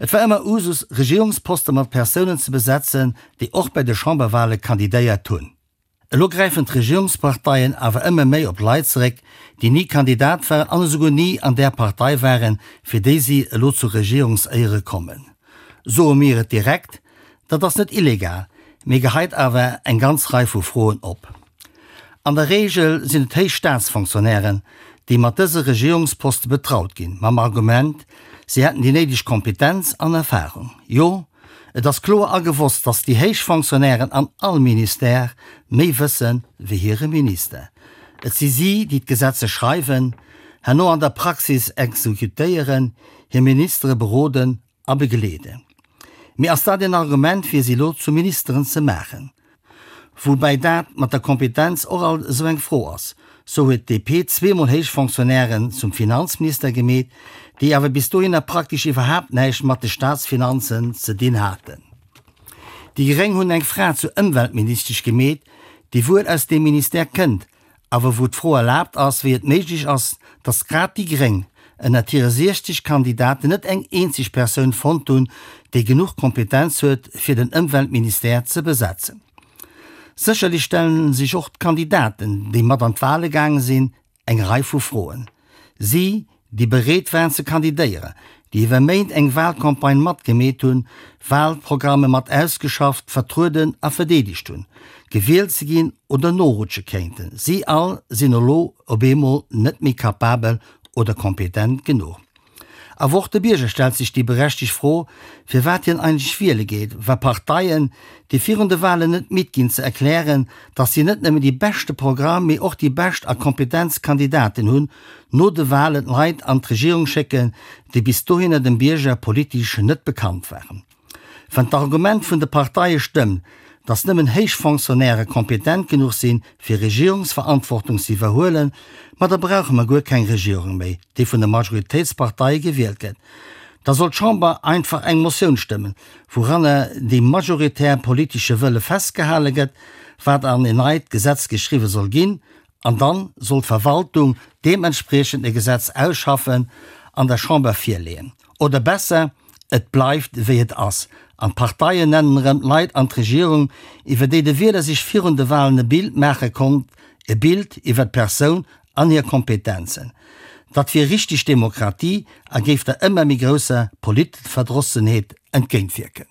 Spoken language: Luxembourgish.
Et war ëmmer Usus, Regierungsposte mat Persounen ze besetzen, déi och bei de Chamberwale kandidéiert hunn. Elo gräifen d'Regierungsparteien awer ëmmer méi op Leit zeréck, déi ni Kandidat waren an esouguer ni an där Partei waren, fir déi si elo zu Regierungséiere kommen. Soe mir et direkt, Dat ass net illegal, mee geheit awer eng ganz Rei vu Froen op. An der Reegel sinn et héich Staatsfonctionnairen, déi mat dëse Regierungsposte betraut ginn, mam Argument, si hätten déi néideg Kompetenz an Erfarung. Jo, et ass kloer a gewosst, datt déi héich Fonctionnairen an all Ministère méi wësse wéi hire Minister. Et si si, déi d'Gesetze schreiwen, herno an der Praxis exekutéieren, hir Ministere beroden a begleeden. Mee ass dat een Argument fir si elo zu Ministeren ze maachen? Woubäi dat mat der Kompetenz och alt esou eng Fro ass. Sou huet d'DP zweemol héich Fonctionnairen zum Finanzminister gemeet, déi awer bis dohinner praktesch iwwerhaapt näischt mat de Staatsfinanzen ze dinn haten. Déi Gréng hunn eng Fra zur Ëmweltministesch gemeet, déi wuel aus deem Ministère kënnt, Awer wou d'Fro erlaabt ass, wéi et méiglech ass, datt grad déi Gréng ënnert hire 60 Kandidaten net eng eenzeg Persoun fonnt hunn, déi genuch Kompetenz huet, fir den Ëmweltministère ze besetzen. Sécherlech stelle sech och d'Kandidaten, déi mat an d'Wale gaange sinn, eng Rei vu Froen. Si, déi bereet waren ze kandidéieren, déi iwwer Méint eng Wahlcampagne matgemeet hunn, Wahlprogramme mat ausgeschafft, vertrueden a verdeedegt hunn, gewielt ze ginn oder norutsche kéinten, si all sinn elo op eemol net méi capabel oder kompetent genuch. Awer och de Bierger stellt sech déi berechtegt Fro, firwat hien eigentlech wiele geet, wa Parteien, déi virun de Wahlen net midd ginn ze erklären, datt si net nëmmen déi beschte Programm, mee och déi bescht a kompetentst Kandidaten hunn, no de Wahlen Leit an d'Regierung schécken, déi bis dohinner dem Bierger politesch net bekannt waren. Wann d'Argument vun de Parteie stëmmt, datt nëmmen héich Fonctionnairë kompetent genuch sinn, fir Regierungsverantwortung ze iwwerhuelen, ma da brauche mer guer keng Regierung méi, déi vun de Majoritéitsparteie gewielt gëtt. Da soll d'Chamber einfach eng Motioun stëmmen, wouranner dee majoritär politesche Wëlle festgehale gëtt, wat an en neit Gesetz geschriwwe soll ginn, an dann soll d'Verwaltung deementspriechend e Gesetz ausschaffen an der Chamber virleeën. Oder besser, et bleift wéi et ass an d'Parteien nennen erëm d'Leit an d'Regierung, iwwer déi de Wieler sech virun de Walen e Bild maache konnt, e Bild iwwer d'Persoun an hir Kompetenzen. Dat wier richteg Demokratie a géif der ëmmer méi grousser Politverdrossenheet entgéintwierken.